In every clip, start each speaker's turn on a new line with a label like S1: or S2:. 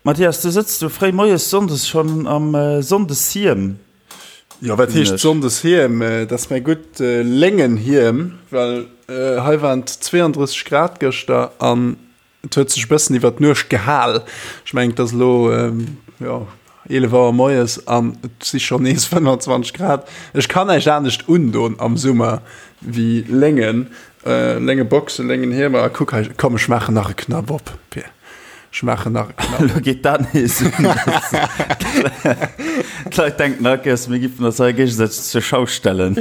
S1: Mathias, du sëtz do fréi moies sonndes schonn am Sonndeshiem.
S2: Jo, wat heescht Sonndeshiem? Dat ass mäi gutt Léngenhiem, well hei waren et 32 Grad gëschter an et huet sech e bëssen iwwer d'Nuecht gehal. Ech mengen, et ass elo, jo, 11 Auer moies an et si schonn nees 25 Grad. Ech kann näischt anescht undoen am Summer wéi Léngen, Léngeboxen, Léngenhiemer. A kuck hei, komm ech maachen nach e Knapp op, Pir. Ech maachen nach e Knapp.
S1: Elo geet dat nees un. D'Leit denken all Kéiers, mir giffen eis hei géigesäiteg zur Schau stellen.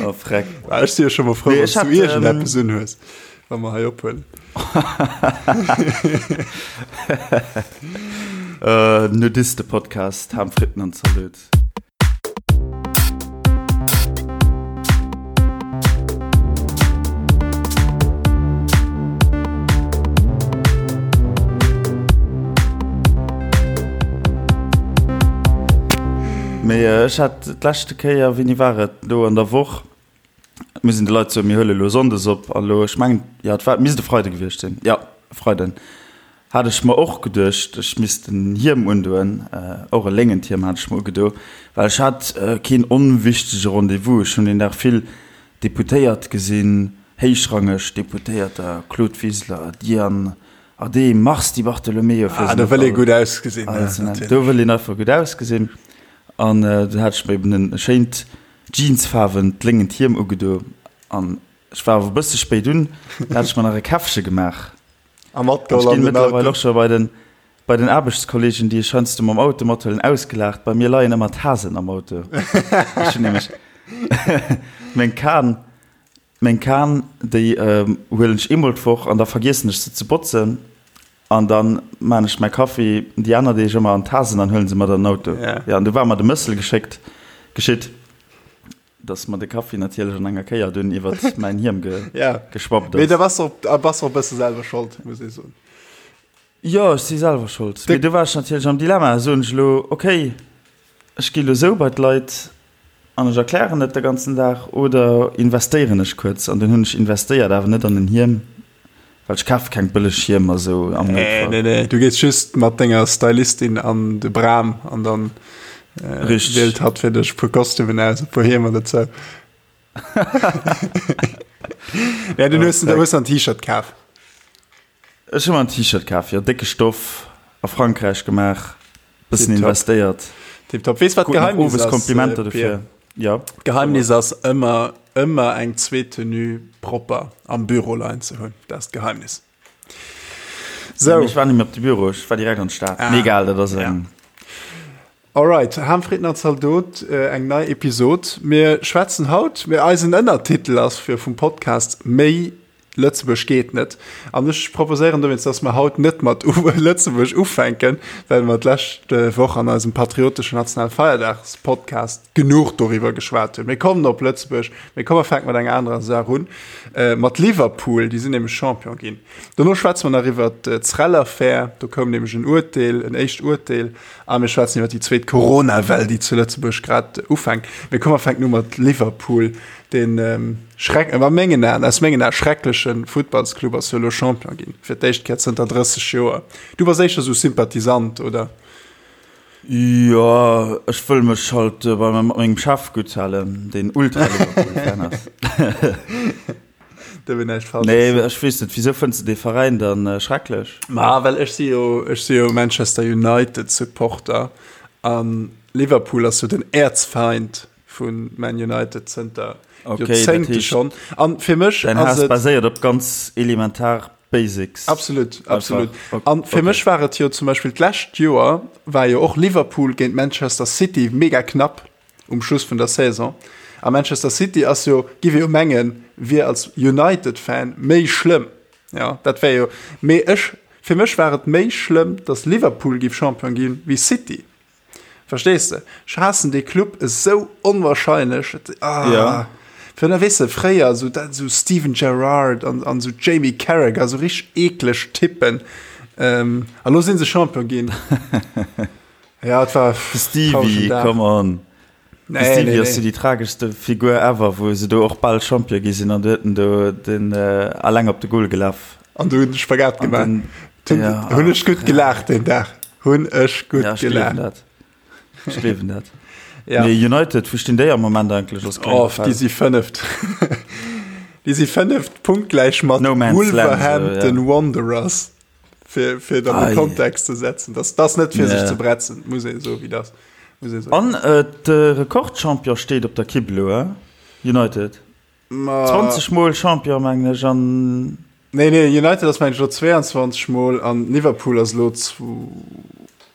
S1: Oh, freck.
S2: Ah, ech si jo scho mol frou,
S1: Nee,
S2: wann
S1: ech
S2: du
S1: hat,
S2: iergendeppes unhues, wa mer hei ophuelen.
S1: Äh, Nudiste-Podcast, Ham, Fritten an Zalot. Mee ech hat d'leschte Kéier, wéini war et, elo an der Woch, muss een de Leit soen, mir huele elo sonndes op a lo, ech mengen, jo, et war, misst e Freide gewiescht sinn, jo, e Freiden, hat ech mer och geduecht, ech misst en Hiem undoen, och e léngent Hiem hat ech mer ugedo, well ech hat keen onwichtege Rendez-vous. Ech hunn deen Dag vill Deputéiert gesinn, héichrangeg Deputéierter, Claude Wiseler, Diane Adehm, Mars Di Bartolomeo, fir
S2: se
S1: net
S2: all
S1: ze nennen. Do wëll een einfach gutt ausgesinn. An du hat ech mer eben en schéint jeansfaarwent léngent Hiem ugedo an ech war awer e bësse spéit un, da hat ech mer nach e Käffche gemaach.
S2: A matgeholl
S1: an den Auto. Ech ginn mëttlerweil och scho bei den, bei den Aarbechtskollegen, déi ech heiansdo mam Auto mathuelen, ausgelaacht. Bei mir leien ëmmer d'Tasen am Auto. Ech hunn nämlech meng Kan, meng Kan, déi huelen ech eemol d'Woch an da vergiessen ech se ze botzen. An dann maan ech mäi Kaffi déi aner Deeg ëmmer an Tasen an huelen se mat an den Auto. Jo, an du war mer de Mëssel geschéckt, geschitt, dass mer de Kaffi natierlech an enger Kéier dunn iwwert mäin Hiem geschwappt ass.
S2: Mee da bass de och, bass och e bësse selwer Schold, muss ee soen.
S1: Jo, ech si selwer Schold. Mee du war ech natierlech am Dilemma. Soen ech elo, okay, ech gi elo sou bei d'Leit an ech erklären et de ganzen Dag, oder investéieren ech kuerz? An dunn hunn ech investéiert, awer net an en Hiem. Well ech kaf keng bëlleg Hiemer sou am
S2: Noutfall. Nee, nee, du gees just mat denger Stylistin an de Bram an dann äh, wielt hatt fir dech puer Kostümen aus, e puer Hiemer dozou. ja, du hues, du hues en T-Shirt kaf.
S1: Ech hu mer en T-Shirt kaf, jo, décke Stoff, a Frankräich gemaach, bëssen investéiert.
S2: Tiptop. Weess wat d'Geheimnis ass?
S1: Komplimenter dofir.
S2: Ja. D'Geheimnis ass ëmmer, ëmmer eng zweet Tenue propper am Büro leien ze hunn. Dat ass d'Geheimnis.
S1: Sou. Ech war net méi op de Büro, ech war direkt an d'Stad. Ah. Mee egal, dat ass eng.
S2: Alright, Ham Fritten an Zaldot, eng nei Episod. Mir schwätzen haut, mir eisen Ënnertitel ass fir vum Podcast Méi Lëtzebuerg geet net. An ech proposéieren dowéinst, dass mer haut net mat Lëtzebuerg ufänken, well mer d'lescht Woch an eisem patrioteschen Nationalfeierdags-Podcast genuch doriwwer geschwat hunn. Mir kommen op Lëtzebuerg, mee komm mer fänke mat enger anerer Saach un, mat Liverpool, déi sinn nämlech Champion ginn. Dono schwätze mer nach iwwert d'Srel-Affär, do koum nämlech en Urteel, en éischt Urteel, a mir schwätzen iwwer déi zweet Corona-Well, déi zu Lëtzebuerg grad ufänkt. Mee komm mer fänken u mat Liverpool. Den Schreck, a mengen Aen, aus mengen Ae schreckleche Futtballsclub ass jo elo Champion ginn, fir d'éischt Kéier zënter 30 Joer. Du bass éischter sou Sympathisant, oder?
S1: Jo, ech wëll mech halt bei mat mengem Chef gutt halen, deen Ultra-Liverpool-Fan ass.
S2: Do wär näischt falsch.
S1: Nee, ech weess net, wisou fënns de dee Veräin dann schrecklech?
S2: Ma well ech si jo, ech si jo Manchester United-Supporter an Liverpool ass jo den Äerzfeind vu Man United zënter
S1: okay,
S2: Joerzéngte schonn. An fir mech
S1: Dein Haass baséiert op ganz elementar Basics.
S2: Absolut, absolut. An fir okay. mech war et jo zum Beispill d'lescht Joer war jo och Liverpool géint Manchester City mega knapp um Schluss vun der Saison. A Manchester City ass jo, giff ee jo mengen, wier als United-Fan méi schlëmm. Ja, dat wär jo, mee ech, fir mech war et méi schlëmm, datt Liverpool giff Champion ginn, wéi City. Verstees de? Ech haassen dee Club esou onwahrscheinlech. Ah.
S1: Ja.
S2: Fir da weess de, fréier esou dat esou Steven Gerrard an, an esou Jamie Carragher, esou richteg eekleg Typen. Ähm, a lo sinn se Champion ginn. ja, et war
S1: De Stevie, come on. De
S2: Nee,
S1: Stevie
S2: nee,
S1: ass jo
S2: nee.
S1: déi trageschste Figur ever, wou se do och bal Champion gi sinn an du huet en do den äh, alleng op de Goal gelaf.
S2: An du hunn de Spagat
S1: An
S2: gemaach.
S1: den.
S2: Ja, hunn ech gutt gelaacht deen Dag. Hunn ech gutt ja,
S1: gelaacht. Ech gleewen dat. Ja. Nee, United, wou stinn déi am Moment eigentlech?
S2: Als oh, déi si fënneft. déi si fënneft punktgläich mat no Wolverhampton so, ja. Wanderers. Fir, fir dann de Kontext ze setzen. Das, das net fir yeah. sech ze bretzen, muss ee so wéi das.
S1: Muss ee so. An äh, de Rekordchampion steet op der Kibb elo, eh? United. Ma 20 Mol Champion mengen ech an.
S2: Nee, nee, United ass mengen ech elo 22 Mol an Liverpool ass elo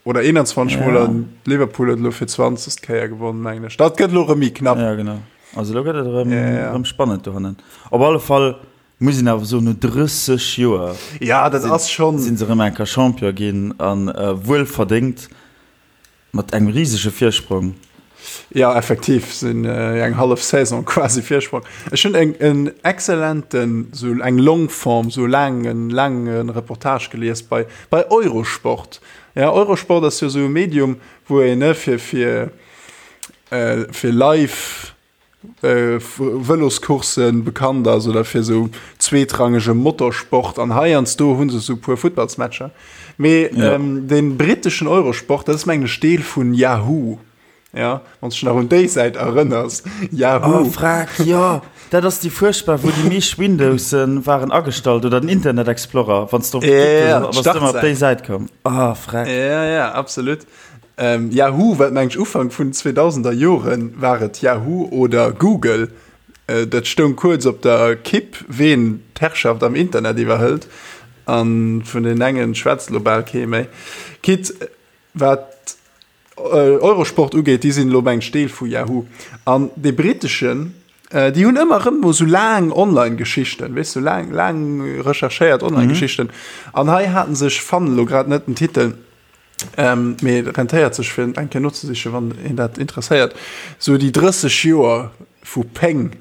S2: oder 21 Mol an Liverpool huet elo fir 20. Kéier gewonnen mengen ech. Dat gëtt elo erëm méi knapp.
S1: Ja genau. Also elo gëtt et erëm ja, ja. erëm spannend dohannen. Op alle Fall muss een awer soen, no 30 Joer
S2: ja, dat ass schon
S1: sinn se erëm eng Kéier Champion ginn an äh, wuel verdéngt. Mat engem risege Virsprong.
S2: Ja, effektiv sinn eng hallef Saison quasi Virsprong. Ech hunn eng en excellenten, sou eng Longform, sou laangen, laange Reportage gelies bei, bei Eurosport. Ja, Eurosport ass jo sou e Medium, wou een, ne, fir, fir, fir live Vëloscourssen bekannt ass oder fir esou zweetrangege Motorsport an heiansdo hu se esou puer Futtballsmatcher. Mee ja. ähm, den britteschen Eurosport, dat ass mengen ech Deel vun Yahoo. Ja, wann du nach un déi Säit erënners.
S1: Yahoo. Oh, frag, ja. Dat ass déi fuerchtbar, wou déi meescht Windowsen waren agestallt oder den Internet Explorer, wann du op, ja, ja, op déi Säit koum.
S2: Ah, frag. Ja, ja, absolut. Yahoo, wat mengt ech Ufank vun 2000er Joren war et Yahoo oder Google, dat stoung kuerz op der Kipp, ween d'Herrschaft am Internet iwwerhëlt. A vun den engen schwätzt elo bal kee méi. Quitte wat Eurosport ugeet, déi sinn elo mengt ech Deel vu Yahoo. An dee britteschen, déi hunn ëmmer erëm mol sou laang Online-Geschichten, weess du, laang, laang recherchéiert Online-Geschichten. An hei haten se, ech fannen elo grad net den Titel, Ähm, mee et rentéiert sech fir eng Kéier nozesichen, wann een dat interesséiert. Sou déi 30 Joer vu Péng,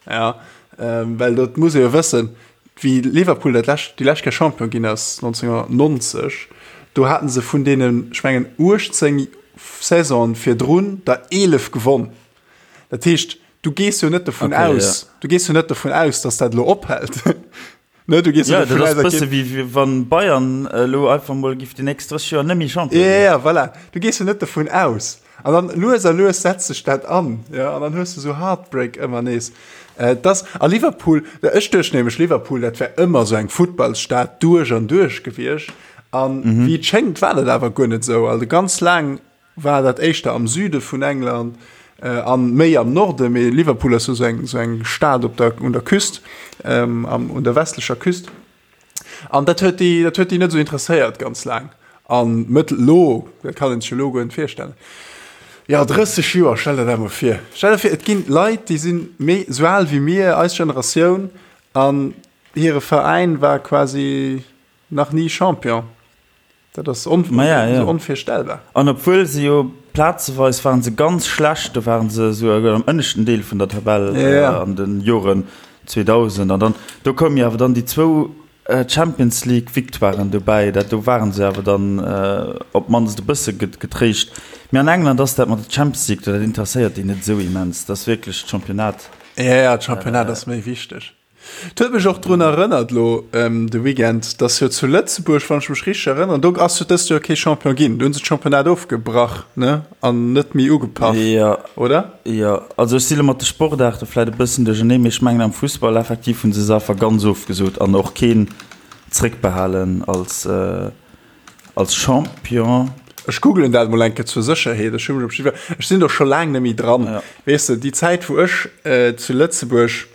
S2: ja, ähm, well dat muss ee jo wëssen, wéi Liverpool dat lescht, déi lescht Kéier Champion ginn ass, 1990, do haten se vun deenen, ech mengen 18 Saisonen virdrun der 11 gewonn. Dat heescht, du gees jo net dovun okay, aus, ja. du gees jo net dovun aus, dass dat elo ophält.
S1: Ne, du gehst ja, dat ass bësse wéi wéi wann Bayern elo einfach mol giff déi nächst 30 Joer net méi
S2: Champion ginn. Ja, ja, voilà. Du gees jo net dovun aus. An dann lues a lues setzt sech dat an, ja, an dann hues du sou Heartbreak ëmmer nees. Äh, das, a Liverpool, ech duecht nämlech Liverpool, dat wär ëmmer sou eng Futtballsstad duerch an duerch gewiescht. An mhm. wéi et schéngt, war dat awer guer net sou. Also ganz laang war dat éischter am Süde vun England an méi am Norde, mee Liverpool ass jo sou eng sou eng Stad op der un der Küst, ähm, am un der westlecher Küst. An dat huet déi dat huet déi net sou interesséiert ganz laang. An mëttel lo, dat kann een sech elo guer net virstellen. Jo, 30 Joer, stell der dat mol vir. Stell der vir, et ginn Leit, déi sinn méi sou al wéi mir, eis Generatioun, an hire Veräin war quasi nach ni Champion. Dat ass on
S1: Ma ja, ja.
S2: onvirstellbar.
S1: An obwuel se jo plazeweis waren se ganz schlecht, do waren se esou am ënneschten Deel vun der Tabell
S2: ja, ja.
S1: an den Joren 2000 an dann do koumen jo awer dann déi zwou Champions League Victoiren dobäi, dat do waren se awer dann op d'mannst e bësse getréischt. Mee an England ass dat mat der Champions League, dat interesséiert déi net esou immens, dat ass wierklech d'Championnat.
S2: Ja, ja, d'Championnat ass méi wichteg. Et huet mech och drun erënnert elo de Weekend, dass jo zu Lëtzebuerg, wann ech mech richteg erënneren, do ass jo dëst Joer kee Champion ginn. Do hu se d'Championnat ofgebrach, ne, an net méi ugepaff,
S1: Jo,
S2: oder?
S1: jo. Also ech si lo mat de Sportaarte vläit e bëssen duercherneen, mee ech mengen am Fussball effektiv hu se se einfach ganz ofgesot an och keen zréckbehalen als. Als Champion.
S2: Ech googelen dat mol eng Kéier zur Sécherheet. Ech hu mech op jiddwer, ech sinn do scho laang net méi dran.
S1: Ja.
S2: Weess de, déi Zäit wou ech zu Lëtzebuerg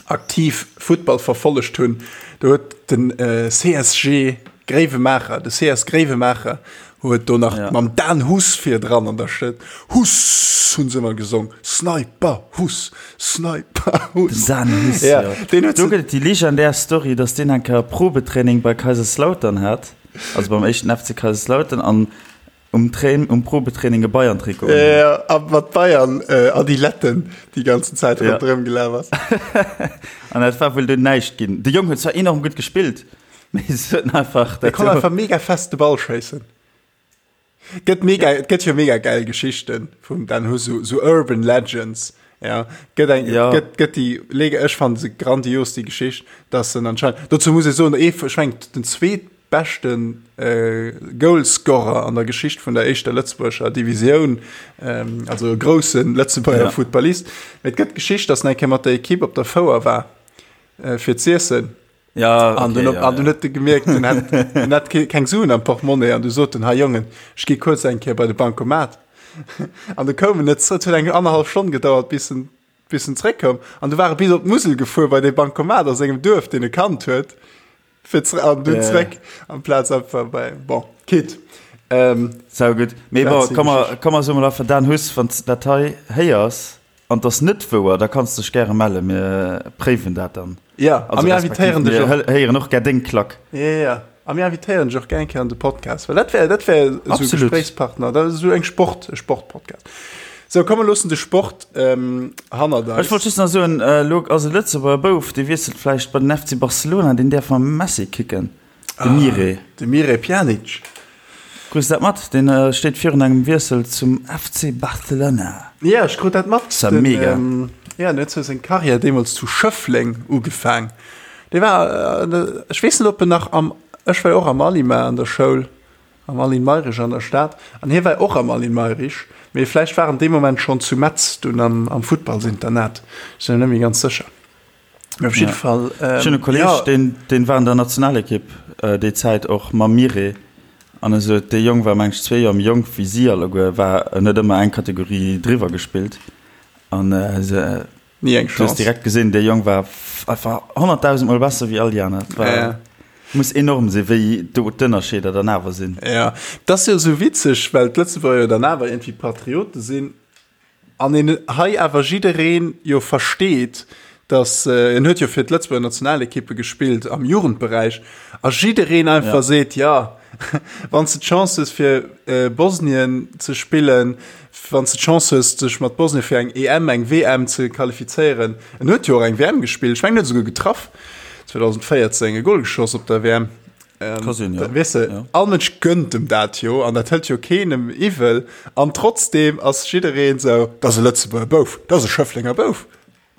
S2: aktiv Futtball verfollegt hunn, do huet den CSG Gréiwemaacher, de CS Gréiwemaacher huet do nach
S1: Ja.
S2: mam Dan Huss virdran an der Stëtt, Huss hunn se ëmmer gesong, Sniper Huss, Sniper Huss.
S1: Den Dan Huss,
S2: Ja,
S1: jo.
S2: deen huet
S1: Do
S2: se.
S1: gëtt et déi legendär Story, datt deen eng Kéier e Probetraining bei Kaiserslautern hat, also beim éischten FC Kaiserslautern, an um Train, um Probetraining e Bayern-Trikot
S2: unhat. Ja, a mat Bayern Adiletten déi ganzen Zäit
S1: Ja.
S2: ronderëm gelaf ass.
S1: An dat war wuel dunn näischt ginn. De Jong huet zwar enorm gutt gespillt, mee se huet einfach
S2: Dee
S1: dat
S2: konnt einfach mega fest de Ball schéissen. Gëtt mega, et gëtt jo mega geil Geschichten vum Dan Huss, so, so Urban Legends. Ja, gëtt eng,
S1: Ja.
S2: gëtt, gëtt déi, leg, ech fannen se grandios, déi Geschicht, dass en anscheinend, dozou muss ee soen, ee, ech mengen, den zweet. beschte Goalscorer an der Geschicht vun der éischter lëtzebuergescher Divisioun, also e grousse Lëtzebuerger Futtballist. Mee et gëtt d'Geschicht, datt en eng Kéier mat der Ekipp op der Fouer war fir z'iessen.
S1: Ja,
S2: An
S1: okay,
S2: dunn,
S1: ja,
S2: an dunn
S1: ja.
S2: huet e gemierkt, en hätt, en hätt keng Suen am Portemonnaie an du sot en, Hei Jongen, ech gi kuerz eng Kéier bei de Bancomat. An du koum en net zrëck, et huet eng annerhallef Stonn gedauert, bis en, bis en zréckkoum. An du war e bis op d'Musel gefuer bei dee Bancomat a sengem Duerf, deen e kannt huet, fir zr an dunn
S1: Ja.
S2: zréck, amplaz einfach bei, bon, quitte. Ähm,
S1: Sau gutt. Mee
S2: dat
S1: bon,
S2: sinn
S1: komm mer,
S2: Geschichten.
S1: komm mer soe mol einfach, Dan Huss, wann s de dat hei héiers, An 't ass net wouer, da kanns dech gäre mellen, mir préiwen dat dann.
S2: Ja, a
S1: Also
S2: mir
S1: respektiv
S2: invitéieren dech
S1: mir
S2: och.
S1: héieren och gär deng Klack.
S2: Ja, ja, ja. A mir invitéieren dech och gär eng Kéier an de Podcast, well dat wär, dat wär esou e
S1: Absolut.
S2: Gespréichspartner, dat ass esou eng Sport, e Sportpodcast. Sou, komm, mir loossen de Sport hannert
S1: Ech wollt
S2: eis.
S1: just nach soen, elo ass e Lëtzebuerger Bouf, dee wiesselt vläicht bei den FC Barcelona, deen däerf mam Messi kicken. De Mire.
S2: De Mire Pjanic.
S1: Krus dat mat? Deen steet virun engem Wiessel zum FC Barcelona.
S2: Ja, ech krut dat mat.
S1: Ass ja mega.
S2: Ja, den huet sou seng Karriär deemools zu Schëffleng ugefaang. Dee war, ech weess net, ob en nach am, ech war jo och am Alima an der Schoul, am Aline Mayrisch an der Stad, an hie war och am Aline Mayrisch, mee vläicht war en dee Moment schonn zu Metz dunn am Futtballsinternat, ech sinn mer net méi ganz sécher. Op jidde Fall.
S1: Ech hunn e Kolleeg,
S2: Ja.
S1: deen, deen war an der Nationalekipp déi Zäit och mam Mire. An e sot, dee Jong war meng ech zwee Joer méi jonk wéi si alleguer, war, en huet ëmmer eng Kategorie driwwer gespillt. An se,
S2: Ni eng
S1: du hues
S2: Chance.
S1: direkt gesinn, dee Jong war einfach 100.000 Mol besser wéi all déi aner. Et war,
S2: Ja.
S1: muss enorm sinn, wéi do d'Ënnerscheeder dann awer sinn.
S2: Ja, et ass jo esou witzeg, well d'Lëtzebuerger jo dann awer iergendwéi Patriote sinn. An een hei awer jiddereen jo versteet, datt, en huet jo fir d'Lëtzebuerger Nationalekippe gespillt am Jugendberäich, a jiddereen einfach seet, jo, wann s de d'Chance hues fir Bosnien ze spillen, wann s de d'Chance hues dech mat Bosnien fir eng EM, eng WM ze qualifizéieren, en huet jo och eng WM gespillt, ech mengen en huet esouguer getraff 2014, e Gol geschoss op der WM.
S1: Ka sinn, ja.
S2: Weess de,
S1: Ja.
S2: all Mënsch gönnt em dat jo an dat hëlt jo keenem iwwel an trotzdem ass jiddereen sou, dat ass e Lëtzebuerger Bouf, dat ass e Schëfflenger Bouf,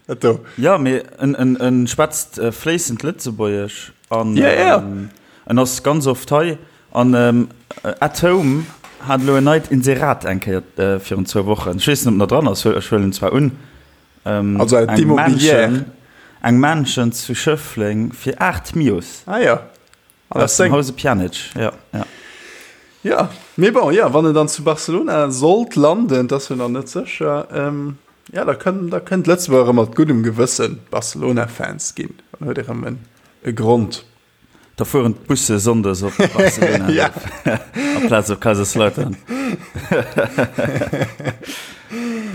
S2: dat do.
S1: Ja, mee en, en, en schwätzt fléissend Lëtzebuergesch an
S2: Ja, ja.
S1: en ass ganz oft hei an At Home hat elo en neit Inserat eng Kéier virun zwou Wochen. Ech weess net, ob en nach dran ass, ech huelen zwar un.
S2: Also
S1: Eng
S2: d'Immobilière.
S1: Mansion, eng Mansion zu Schëffleng fir 8 Mios.
S2: Ah ja. An
S1: Aus dem Hause Pjanic, ja, ja.
S2: Ja, mee bon, ja, wann en dann zu Barcelona sollt landen, dat ass jo nach net sécher, ähm, ja, da kënn, da kënnt Lëtzebuerg erëm mat guddem Gewëssen Barcelona-Fans ginn. Dann huet ee rëm en, e Grond.
S1: Da fueren d'Busse sonndes op Barcelona
S2: Ja.
S1: amplaz op Kaiserslautern.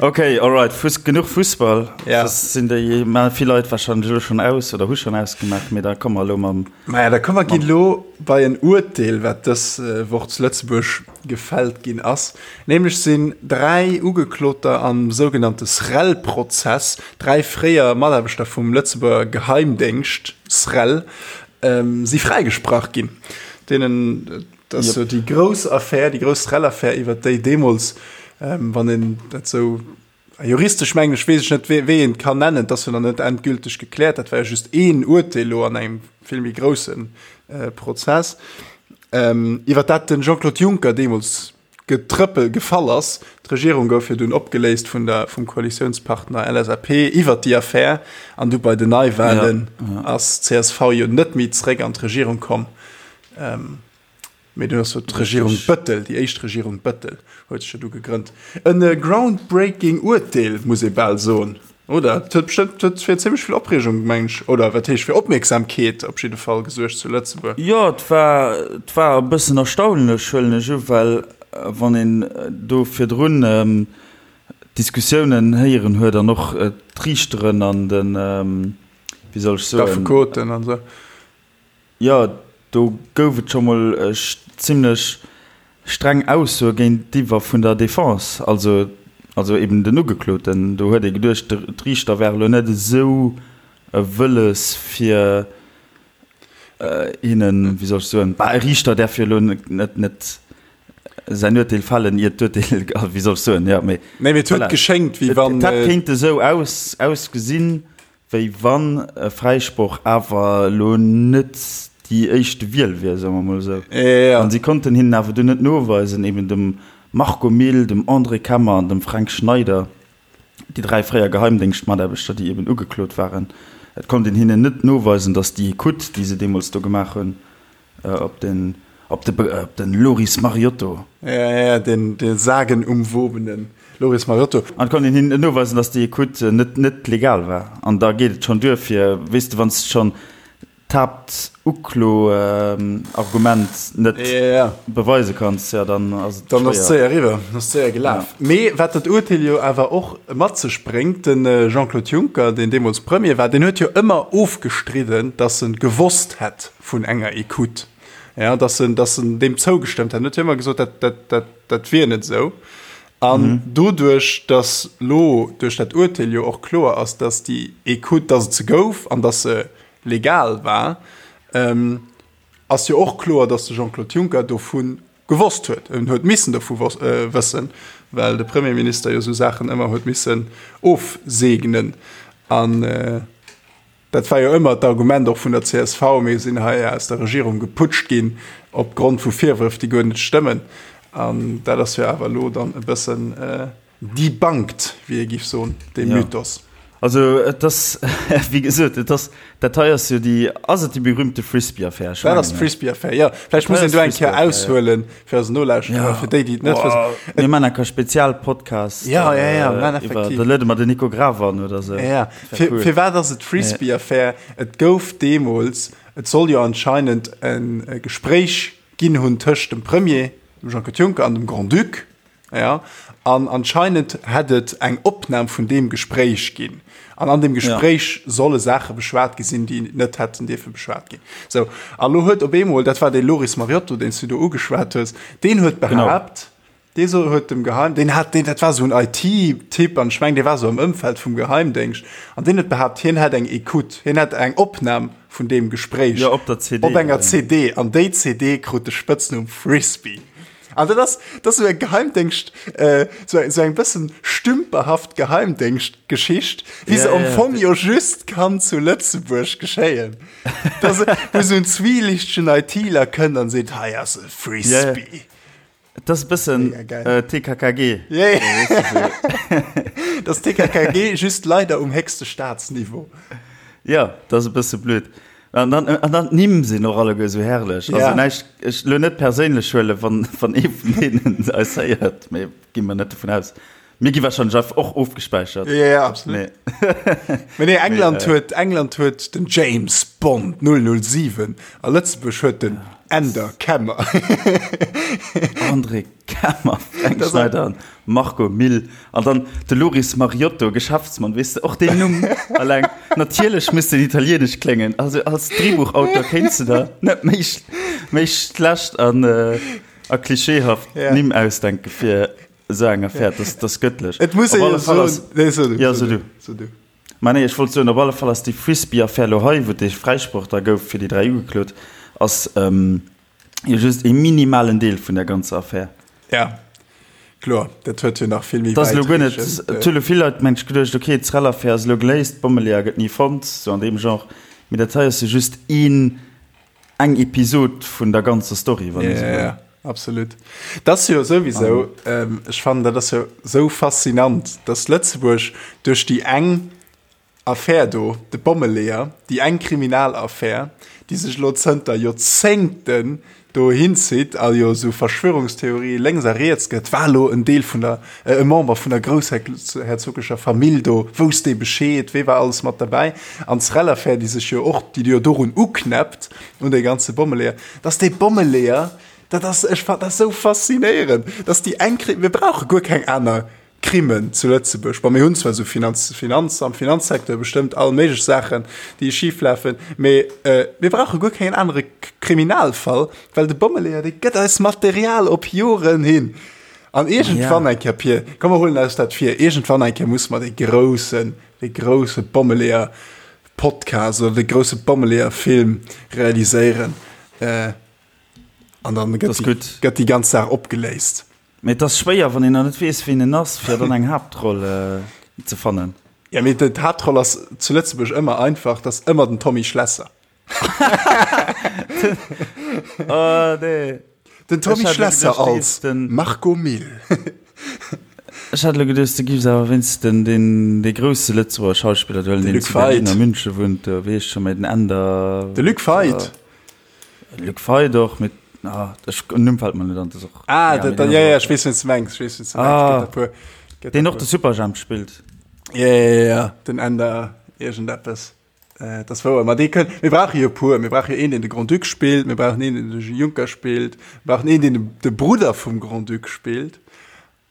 S1: Okay, alright, Fuss, genuch Fussball.
S2: Ja.
S1: Das sinn déi ma vill Leit wahrscheinlech elo schonn aus oder hu schonn ausgemaach, mee da komme mer elo mam.
S2: Maja, da komme mer ginn elo bei en Urteel, wat dës Woch zu Lëtzebuerg gefällt ginn ass. Nämlech sinn 3 Ugekloter am sougenannte SREL-Prozess, 3 fréier Mataarbechter vum Lëtzebuerger Geheimdéngscht SREL, si fräigesprach ginn. Deenen, dat ass jo déi grouss Affär, déi grouss SREL-Affär, iwwert déi deemools, wann een dat sou juristesch mengen ech, weess ech net, wéi een et kann nennen, et ass jo nach net endgülteg gekläert, dat war jo just een Urteel elo an engem vill méi grousse Prozess, iwwert dat de Jean-Claude Juncker deemools getrëppel gefall ass. D'Regierung gouf jo dunn opgeléist vun der, vum Koalitiounspartner LSAP iwwert déi Affär an du bei den Neiwahlen ass csv jo net méi zréck an d'Regierung komm. Mee dunn ass jo d'Regierung Bëttel, déi éischt Regierung Bëttel huet sech jo du gegrënnt. En groundbreaking Urteel, muss ee bal soen, oder? Et huet bestëmmt, huet fir zimmlech vill Opreegung, meng ech, oder wat heescht fir Opmierksamkeet op jidde Fall gesuergt zu Lëtzebuerg.
S1: Jo, et war, et war e bëssen erstaunlech, huelen ech u, well wann een do virdrun d'Diskussiounen héieren huet an och d'Riichteren an den, wéi soll ech soen?
S2: D'Affekoten an esou.
S1: Jo, do gouf et scho mol zimlech streng Aussoe géintiwwer vun der Defense, also also eben den Ugekloten. Do huet ee geduecht, d'Riichter wäre lo net esou wëlles fir hinnen, wéi soll ech soen, bah e Riichter däerf jo elo net net säin Urteel fällen, iert d'Urteel, wéi soll ech soen, jo, mee
S2: Nee, mee et huet
S1: voilà.
S2: geschéngt, wéi wann.
S1: Et hätt kéinte esou ausgesinn, Wéi wann e Fräisproch awer elo net Déi éischte Wiel wier, soe mer mol esou. An si konnten hinnen awer dunn net noweisen, eben dem Marco Mille, dem André Kemmer an dem Fränk Schneider, déi 3 fréier Geheimdéngschtmataarbechter, déi eben ugeklot waren, et konnt een hinnen net noweisen, datt déi Ecoute, déi se deemools do gemaach hunn, op den, op de, op den Loris Mariotto.
S2: Ja, ja, den, de sagenumwobenen Loris Mariotto.
S1: An et konnt een hinnen net noweisen, datt déi Ecoute net, net legal war. An da geet et schonn duer fir, weess de, wann s de schonn d'Haaptuklo-Argument net beweise kanns, jo dann ass et
S2: Dann ass et séier eriwwer, dann ass et séier gelaf. Mee wat dat Urteel jo awer och mat sech bréngt, de Jean-Claude Juncker, deen deemools Premier war, deen huet jo ëmmer ofgestridden, datt e gewosst hätt vun enger Ecoute, jo, datt en, datt en deem zougestëmmt hätt. En huet jo ëmmer gesot, dat, dat, dat, dat wier net esou. An doduerch, datt elo duerch dat Urteel jo och kloer ass, datt déi Ecoute, datt et se gouf an datt se legal war, ass jo och kloer, datt de Jean-Claude Juncker dovu gewosst huet. En huet missen dovu wëssen, well de Premierminister jo esou Saachen ëmmer huet missen ofseegnen. An dat war jo ëmmer d'Argument och vun der csv, mir sinn hei aus der Regierung geputscht ginn opgrond vu Virwërf, déi guer net stëmmen. An dat ass jo awer elo dann e bëssen Debunked, wéi ee giff soen, dee Mythos.
S1: Also et ass, wéi gesot, et ass, dat hei ass jo déi, ass et déi berühmte Frisbee-Affär?
S2: Ech Dat ass d'Frisbee-Affär, jo. Vläicht muss een do eng Kéier aushuelen fir eis Nolauschterer, fir déi, déi et net
S1: wëssen. Mir maachen enker Spezialpodcast.
S2: Jo, jo, jo, mir maachen effektiv.
S1: Da luede mer den Nico Graf an oder
S2: esou. Jo, jo. Firwat ass et d'Frisbee-Affär? Et gouf deemools, et soll jo anscheinend e Gespréich ginn hunn tëscht dem Premier, dem Jean-Claude Juncker, an dem Grand-Duc. Ja, an anscheinend hätt et eng Opnam vun deem Gespréich ginn. An an deem Gespréich ja. solle Saache beschwat gi sinn, déi net hätten dierfe beschwat ginn. So, a lo huet op eemol, dat war dee Loris Mariotto, deen s du do ugeschwat hues, deen huet behaapt, dee so huet dem Geheim, deen hat, deen, dat war esou en IT-Typ an ech meng, dee war esou am Ëmfeld vum Geheimdéngscht, an deen huet behaapt, hien hätt eng Ecoute, hien hätt eng Opnam vun deem Gespréich.
S1: Ja, op der
S2: CD. Op enger CD. An déi CD krut de Spëtznumm Frisbee. An dat ass, dat ass esou eng Geheimdéngscht, esou eng, esou eng bëssen stümperhaft Geheimdéngschtgeschicht, wéi se am Fong jo just kann zu Lëtzebuerg geschéien. Dass, wou esou en zwielichtegen ITler kënnt an seet, hei ass e Frisbee.
S1: Et ass e bëssen TKKG.
S2: Ja, ja. Dat ass TKKG, just leider um héchste Staatsniveau.
S1: Ja, dat ass e bësse blöd. An dann, an dann d'Nimm sinn och alleguer esou herrlech. Ja. Also näischt, ech lo net perséinlech huelen, wann, wann ee vun deenen eis héiert, mee gi mer net dovun aus. Mir gi wahrscheinlech einfach och ofgespäichert.
S2: Ja, ja, absolut. Mee, Mee nee, England mee, äh, huet, England huet den James Bond 007 a Lëtzebuerg huet den Änder Kemmer.
S1: André Kemmer, Fränk Schneider an Marco Mille an dann de Loris Mariotto, Geschäftsmann, weess de, och deen Numm alleng, natierlech muss den italienesch kléngen, also als Drehbuchautor kéints de der net méi méi schlecht an a klischeehaft Nimm ausdenke fir esou eng Affär, dat ass gëttlech.
S2: Et muss ee jo soen, nee so du,
S1: jo so du, so du. Mä nee, ech wollt soen, op alle Fall ass déi Frisbee-Affär elo hei, wou dee Fräisproch da gouf fir déi 3 Ugeklot, ass Jo just ee minimalen Deel vun der ganzer Affär.
S2: Ja, kloer, dat huet jo nach vill méi
S1: Dat ass elo guer net, et hu lo vill Leit mengt geduecht, okay, d'Srel-Affär ass elo geléist, d'Bommeleeër gëtt ni fonnt, sou an deem Genre. Mee dat hei ass jo just een, eng Episod vun der ganzer Story,
S2: wann ee sou wëll. Ja, absolut. Dat ass jo souwisou, ech fannen, dat ass jo sou faszinant, dass Lëtzebuerg duerch déi eng Affär do, de Bommeleeër, déi eng Kriminalaffär, déi sech elo zënter Joerzéngten do hinzitt a jo esou Verschwörungstheorie lénks a riets gëtt, war elo en Deel vun der, e Member vun der groussherzogescher Famill do, wousst dee Bescheed, wee war alles mat derbäi? An d'Srel-Affär, déi sech jo och, déi jo dorun uknäppt, un dee ganze Bommeleeër, dass dee Bommeleeër, dat ass, ech fannen dat esou faszinéierend, dass déi eng, mir brauche guer keng aner Crimen zu Lëtzebuerg. Bon, mir hunn zwar esou Finanz, Finanz, am Finanzsecteur bestëmmt all méiglech Saachen, déi schif lafen, mee mir brauche guer keen anere Kriminalfall, well de Bommeleeër, dee gëtt eis Material op Joren hin. An iergendwann eng Kéier, Pir, komm mer huelen eis dat vir, iergendwann eng Kéier musse mer dee groussen, dee grousse Bommeleeër-Podcast oder dee grousse Bommeleeër-Film realiséieren. An dann gëtt déi, gëtt déi ganz Saach opgeléist.
S1: Mee et ass schwéier, wann een nach net weess, ween en ass, fir dann eng Haaptroll ze fannen.
S2: Ja, mee d'Haaptroll ass zu Lëtzebuerg ëmmer einfach, dat ass ëmmer den Tommy Schlesser.
S1: Oh nee.
S2: Den Tommy Schlesser als Marco Mille.
S1: Ech hat elo geduecht, du giffs awer wéinst den deen dee grousse Lëtzebuerger Schauspiller do huelen, deen zu Berlin a Münche wunnt, do wéi heescht scho méi den Änder.
S2: De Luc Feit.
S1: Luc Feit och, mee ah ech den Numm fält mer net an, dat ass och.
S2: Ah, dat, ja, ja, ech weess, wien s de mengs, ech weess, wien s de mengs. Gëtt der puer.
S1: Gëtt der Deen och de Superjhemp spillt.
S2: Ja, ja, ja, ja, den Änder iergendeppes. Dat ass wouer. Ma dee kënnt, mir brauche jo e puer. Mir brauche jo een, deen de Grand-Duc spillt, mir brauchen een, deen de Juncker spillt, mir brauchen een, deen de Brudder vum Grand-Duc spillt.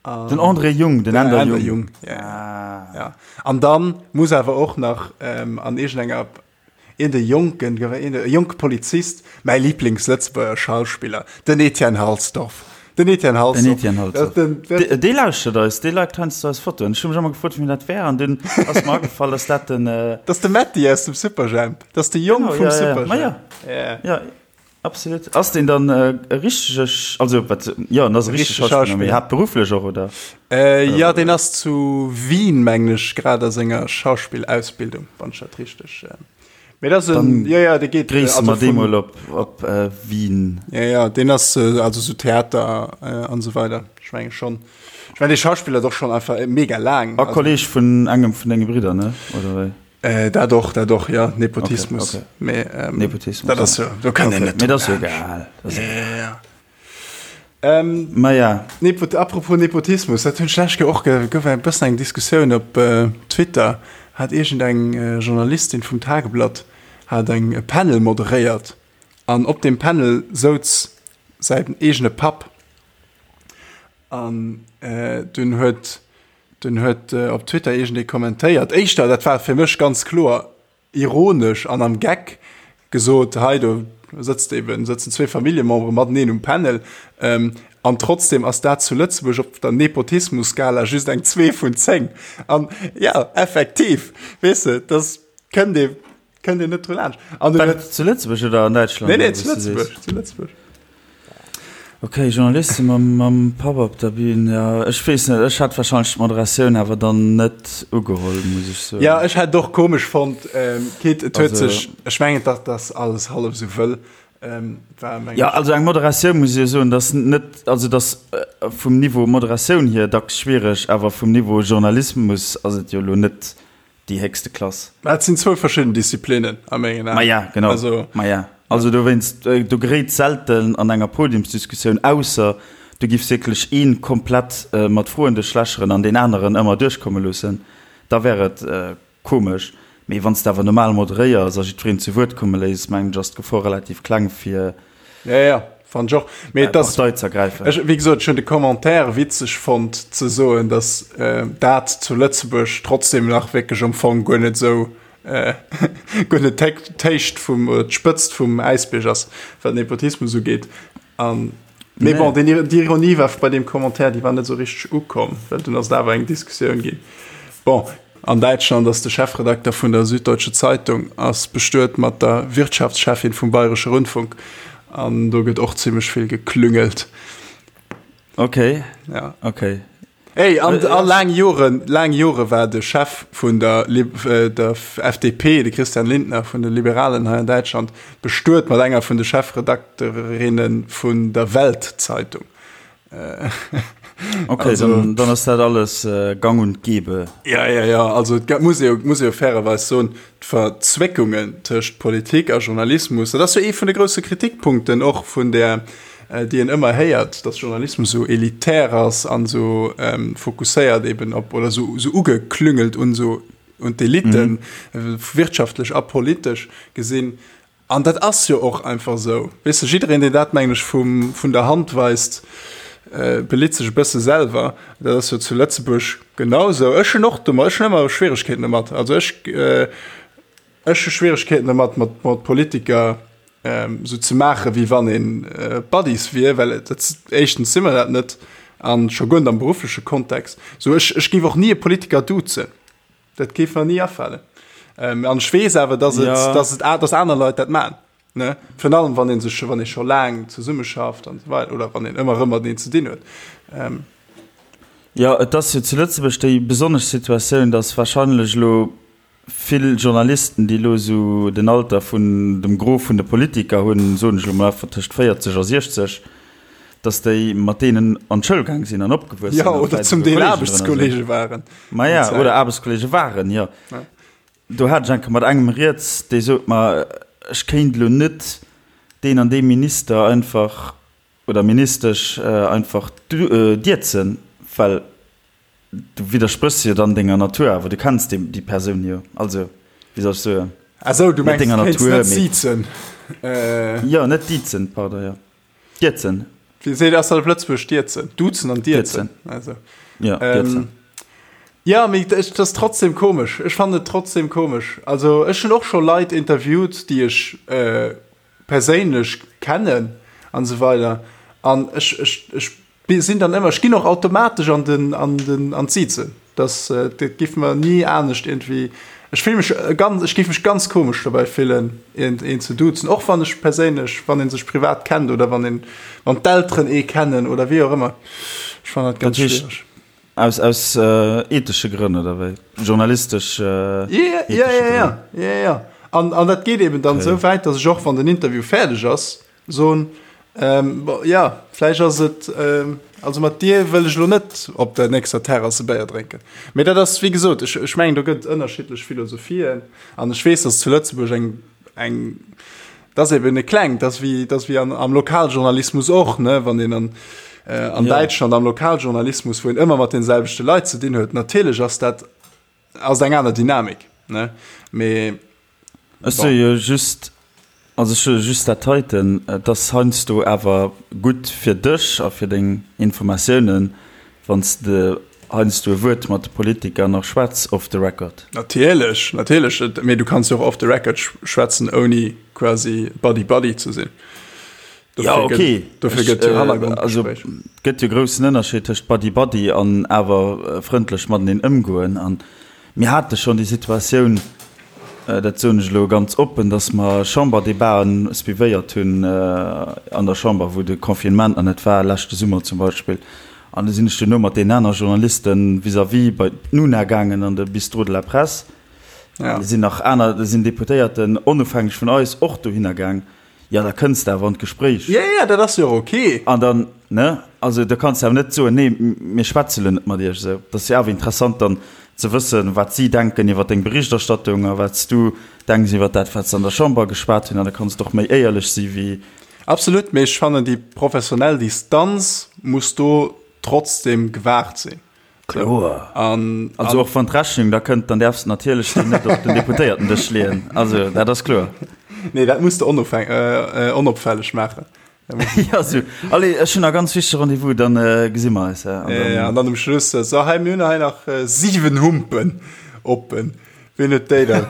S1: Den André Jung, den Änder Jung.
S2: Jung, ja. Ja. An dann muss awer och nach an iergendenger een de jonken, een de jonke Polizist, mäi Lieblings-Lëtzebuerger Schauspiller, den Etienne Halsdorf. Den Etienne Halsdorf.
S1: Den Etienne Halsdorf. Den, den, dee lauschtert eis, dee liked heiansdo eis Fotoen. Ech hu mech ëmmer gefrot, wien dat wär, an dunn ass mer agefall, dass dat den.
S2: Äh, dat ass de Metti aus dem Superjhemp. Dat ass de Jong
S1: genau,
S2: vum
S1: ja,
S2: Superjhemp.
S1: Ja, ja. Ja. ja. Absolut. Ass deen dann äh, e richtege, also wat, ja, en ass e richtege Schauspiller, mee haaptberufflech och, oder?
S2: Äh, ja, deen ass zu Wien, mengen ech, grad a senger Schauspillausbildung, wann ech dat richteg. Äh, Mee dat ass en, ja, ja, dee geet.
S1: Gréisse mer dee mol op, op äh, Wien.
S2: Ja, ja, deen ass äh, also sou Theater äh, an esou weider. Ech menge schonn. Ech meng, dee schauspillert och schonn einfach mega laang.
S1: A Kolleg vun engem vun denge Bridder, ne? Oder wéi?
S2: Äh, dat och, dat och, ja, Nepotismus.
S1: Okay, okay.
S2: Mee, ähm,
S1: Nepotismus.
S2: Dat ass jo, do kann een net.
S1: Mee dat ass jo egal.
S2: Ja, ja, ja. Ähm,
S1: Ma ja.
S2: Nepot, apropos Nepotismus, dat hunn ech d'lescht Kéier och ge, gouf e bëssen eng Diskussioun op äh, Twitter, hat iergendeng äh, Journalistin vum Tageblatt hat eng e Panel moderéiert an op deem Panel souz säin eegene Papp an äh, dunn huet dunn huet äh, op Twitter iergendee kommentéiert, éischter, dat war fir mech ganz kloer, ironesch an am Geck gesot, hei do sëtzt eben, sëtzen zwee Familljemembere mateneen um Panel, an trotzdem ass dat zu Lëtzebuerg op der Nepotismus-Skala just eng 2 vun 10. An jo, effektiv, weess de, dass kënnt ee, kënnt een net dru laanscht.
S1: An du huet. Zu Lëtzebuerg oder an Däitschland?
S2: Nee, nee, zu Lëtzebuerg, zu Lëtzebuerg.
S1: Ok, Journaliste mam, mam Papp op der Bühn, jo, ech weess net, ech hätt wahrscheinlech d'Moderatioun awer dann net ugeholl, muss ech soen.
S2: Jo, ech hätt et och komesch fonnt, quitte et huet sech, ech mengen, dat ass alles hallef esou wëll, war meng.
S1: Jo, also eng Moderatioun, muss ech jo soen, dat ass net, also dat ass vum Niveau Moderatioun hier dacks schwiereg, awer vum Niveau Journalismus ass et jo elo net déi héchste Klass.
S2: Mä et sinn zwou verschidden Disziplinnen a mengen
S1: Aen. Maja, genau. Also, Maja. Also dowéinst, do geréit selten an enger Podiumsdiskussioun, ausser du giffs wierklech ee komplett mat Froen duerchlächeren an deen aneren ëmmer duerchkomme loossen, da wär et komesch. Mee wann s de awer normal moderéiers a jiddwereen zu Wuert komme léiss, mengen ech, ass d'Gefor relativ kleng fir.
S2: Ja, ja, fand ech och. Mee et ass,
S1: Partei ze ergräifen.
S2: Ech, wéi gesot, ech hunn de Commentaire witzeg fonnt, ze soen, datt dat zu Lëtzebuerg trotzdem nach wierklech am Fong guer net esou, guer net d'Héicht vum, oder d'Spëtzt vum Äisbierg ass, wat Nepotismus ugeet. An, mee bon, den, déi Ironie war bei deem Commentaire, déi war net esou richteg ukomm, well dunn ass et awer eng Diskussioun ginn. Bon. An Däitschland ass de Chefredakter vun der Süddeutsche Zeitung ass bestuet mat der Wirtschaftscheffin vum Bayresche Rundfunk an do gëtt och zimmlech vill geklüngelt.
S1: Okay.
S2: Ja.
S1: Okay.
S2: Ey, an, a laang Joren, laang Jore war de Chef vun der, der FDP, de Christian Lindner vun de Liberalen hei an Däitschland, bestuet mat enger vun de Chefredakterinnen vun der Welt-Zeitung.
S1: Okay, also, dann, dann ass dat alles äh, gang und gäbe.
S2: Ja, ja, ja. Also et muss ee muss ee fairerweis soen, d'Verzwéckungen tëscht Politik a Journalismus, dat ass jo ee vun de grousse Kritikpunkten och vun der, äh, déi een ëmmer héiert, dass Journalismus esou elitär ass an esou ähm, fokusséiert eben op oder esou esou ugeklüngelt un esou un d'Eliten, mm. wirtschaftlech a politesch gesinn. An dat ass jo och einfach esou. Weess de, jiddereen, deen dat, mengen ech, vum, vun der Hand weist, belitt sech e bësse selwer. Dat ass jo zu Lëtzebuerg genau esou. Ech hunn och domat, ech hunn ëmmer Schwieregkeeten domat. Also ech, ech hu Schwieregkeeten domat, mat, mat Politiker esou ze maachen, wéi wann ee Buddies wier, well et, dat, éischtens si mer dat net an scho guer net am beruffleche Kontext. Sou, ech, ech géif och ni e Politiker duzen. Dat géif mer ni afalen. Ähm, an ech weess awer, dass et, ja. dass et, dass aner Leit dat man. Ne? Virun allem, wann een sech, wann ee scho laang zesummeschafft an esou weider, oder wann een ëmmer erëm mateneen ze dinn huet.
S1: Ähm. Jo, et ass jo zu Lëtzebuerg déi besonnesch Situatioun, dass wahrscheinlech elo. vill Journalisten, déi elo esou den Alter vun dem Gros vun de Politiker hunn, soen ech elo mol einfach tëscht 40 a 60, datt déi mat deenen an d'Schoul gaang sinn an opgewuess sinn.
S2: Jo, oder zum Deel Aarbechtskollege waren.
S1: Maja, oder Aarbechtskollege waren, jo. Do hat ech eng Kéier mat engem rieds, dee sot mer, ech kéint elo net deen an dee Minister einfach oder Ministesch einfach dierzen, well du widderspréchs jo dann denger Natur, awer du kenns déi, déi Persoun jo. Also, wéi soll ech soen?
S2: Ah sou, du mengs, du kéints net siezen?
S1: Jo, net diezen, pardon, jo. Dierzen.
S2: Wéi seet, ass dat op Lëtzebuergesch dierzen? Duzen an dierzen.
S1: Also. Ja, dierzen.
S2: Ja, mee et ass trotzdem komesch. Ech fannen et trotzdem komesch. Also ech hunn och scho Leit interviewt, déi ech perséinlech kennen an esou weider. An ech, ech, ech sinn dann ëmmer, ech ginn och automatesch an den, an den, an d'Sizen. Das, dat giff mer ni anescht irgendwie, ech fill mech ganz, ech giff mech ganz komesch dobäi fillen een, een ze duzen, och wann ech perséinlech, wann een sech privat kennt oder wann een, wann d'Elteren ee kennen oder wéi och ëmmer. Ech fannen dat ganz schwiereg.
S1: Aus, aus ethesche Grënn oder wéi? Journalistesch
S2: ethesche Grënn? Ja, ja, ja, ja, ja. An, an dat geet eben dann esou wäit, datt ech och, wann den Interview fäerdeg ass, Soen, Bon, jo, vläicht ass et, also mat dir wëll ech elo net op der nächster Terrass e Béier drénken. Mee dat ass, wéi gesot, ech, ech mengen, do gëtt et ënnerschiddlech Philosophien an ech weess, datt zu Lëtzebuerg eng, eng, dat ass eben e klengt, dat ass wéi, dat ass wéi an, am Lokaljournalismus och, ne, wann een an, an Däitschland am Lokaljournalismus, wou een ëmmer mat deene selwechte Leit ze dinn huet, natierlech ass dat, ass eng aner Dynamik, ne, mee.
S1: Ech soe jo just, also ech soe just dat heiten, et ass heiansdo awer gutt fir dech a fir deng Informatiounen, wann s de heiansdo e Wuert mat de Politiker nach schwätz off the record.
S2: Natierlech, natierlech, mee du kanns jo och off the record schwätzen, ouni quasi buddy-buddy ze sinn.
S1: Jo, okay.
S2: Dofir gëtt jo Hannergrondgespréich.
S1: Also et gëtt jo e groussen Ënnerscheed tëscht buddy-buddy an awer frëndlech mateneen ëmgoen. An Mir hate schonn déi Situatioun, dat soen ech elo ganz oppen, datt mer Chamberdebaten suivéiert hunn an der Chamber, wou de Confinement nach net war, leschte Summer zum Beispill. An du sinn ech duerno mat deenen aner Journaliste vis-à-vis bei d'Nuna gaangen an de Bistrot de la Presse. An do sinn nach aner, do sinn Deputéierten onofhängeg vun eis och dohinner gaang. Jo, da kënns de awer an d'Gespréich.
S2: Jo, jo, dat ass jo och ok.
S1: An dann, ne, also da kanns de awer net soen, nee, mir schwätze lo net mat iech esou. Dat ass jo awer interessant dann ze wëssen, wat si denken iwwer deng Berichterstattung a wat s du denks iwwer dat, wat se an der Chamber geschwat hunn. An da kanns de och méi éierlech si wéi.
S2: Absolut, mee ech fannen, déi professionell Distanz muss do trotzdem gewahrt sinn.
S1: Kloer. An, also och wann d'Rechnung da kënnt, dann däerfs de natierlech déi net op den Deputéiertendësch leeën. Also dat ass kloer.
S2: Nee, dat muss de onofhäng, äh, onopfälleg maachen.
S1: Ja, sou. Allez, ech hunn nach ganz wichtege Rendez-vous, dann äh, gesi mer eis.
S2: An dann, ja, an dann um Schluss, äh, so, hei, mir hunn hei nach äh, siwen Humpen oppen. Wien huet déi da,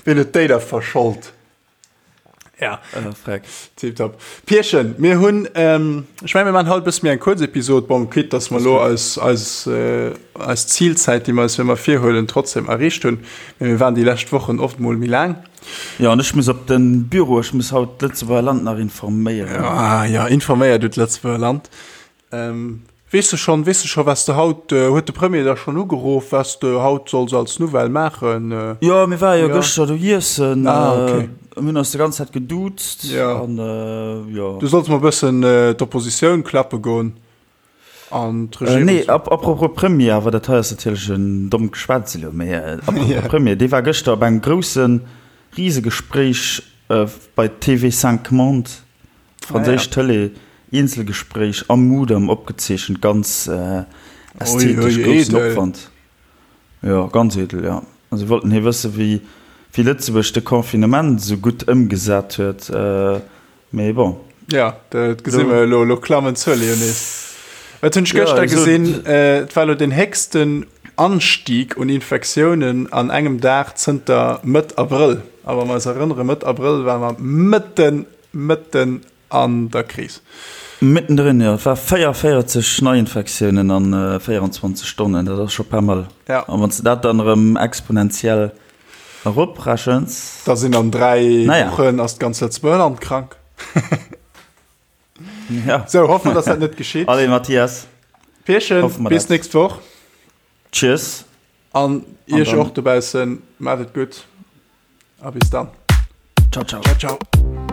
S2: wien huet déi da verschollt? Ja.
S1: Äh, freck.
S2: Tipptopp. Pierchen, mir hunn, ähm, ech meng, mir maachen haut e bësse méi eng kuerz Episod. Bon, quitte dass mer elo eis, eis, äh, eis Zilzäit, déi mer eis ëmmer virhuelen, trotzdem erreecht hunn. Mee mir waren déi lescht Wochen oft mol méi laang.
S1: Jo, an ech muss op de Büro, ech muss haut d'Lëtzebuerger Land nach informéieren.
S2: Ah ja, informéier du d'Lëtzebuerger Land. Ähm, weess de schonn, weess de scho wat s de haut, huet de Premier der schonn ugeruff, wat s de haut solls als Nouvelle maachen?
S1: Jo, mir ware jo gëschter do iessen. Ah, okay. Mir hunn eis déi ganz Zäit geduuzt.
S2: Ja.
S1: An jo.
S2: Du solls mol e bëssen d'Oppositioun klappe goen an
S1: d'Regierung. Nee, apropos Premier, awer dat hei ass natierlech en dommt Geschwätz elo, mee apropos Premier, dee war gëschter op engem grousse Risegespréich bei TV 5 Monde. Franséisch Tëlee, Eenzelgespréich am Mudam opgezeechent, ganz ästhetesch, groussen Opwand. Jo, ganz edel, jo. A si wollten hie wësse wéi wéi Lëtzebuerg de Confinement esou gutt ëmgesat huet, mee bon.
S2: Jo, dat gesi mer elo, elo klammen d'Zuele jo nees. Wat hunn ech gëschter gesinn, et war elo den héchsten Anstieg un Infektiounen an engem Dag zënter Mëtt Abrëll. A wa mer eis erënnere, Mëtt Abrëll ware mer mëtten Mëtten an der Kris.
S1: Mittendrin, jo. Et war 44 Neiinfektiounen an 24 Stonnen, dat ass scho pas mal.
S2: Ja.
S1: An wann s de dat dann erëm exponentiell eroprechens.
S2: Da sinn an 3 Wochen ass d'ganz Lëtzebuerger Land krank.
S1: Ja.
S2: Sou, hoffe mer, dass dat net geschitt.
S1: Allez, Mathias.
S2: Pierchen, bis nächst Woch.
S1: Tschüss.
S2: An Iech och dobaussen, maacht et gutt a bis dann.
S1: Ciao, ciao.
S2: Ciao, ciao.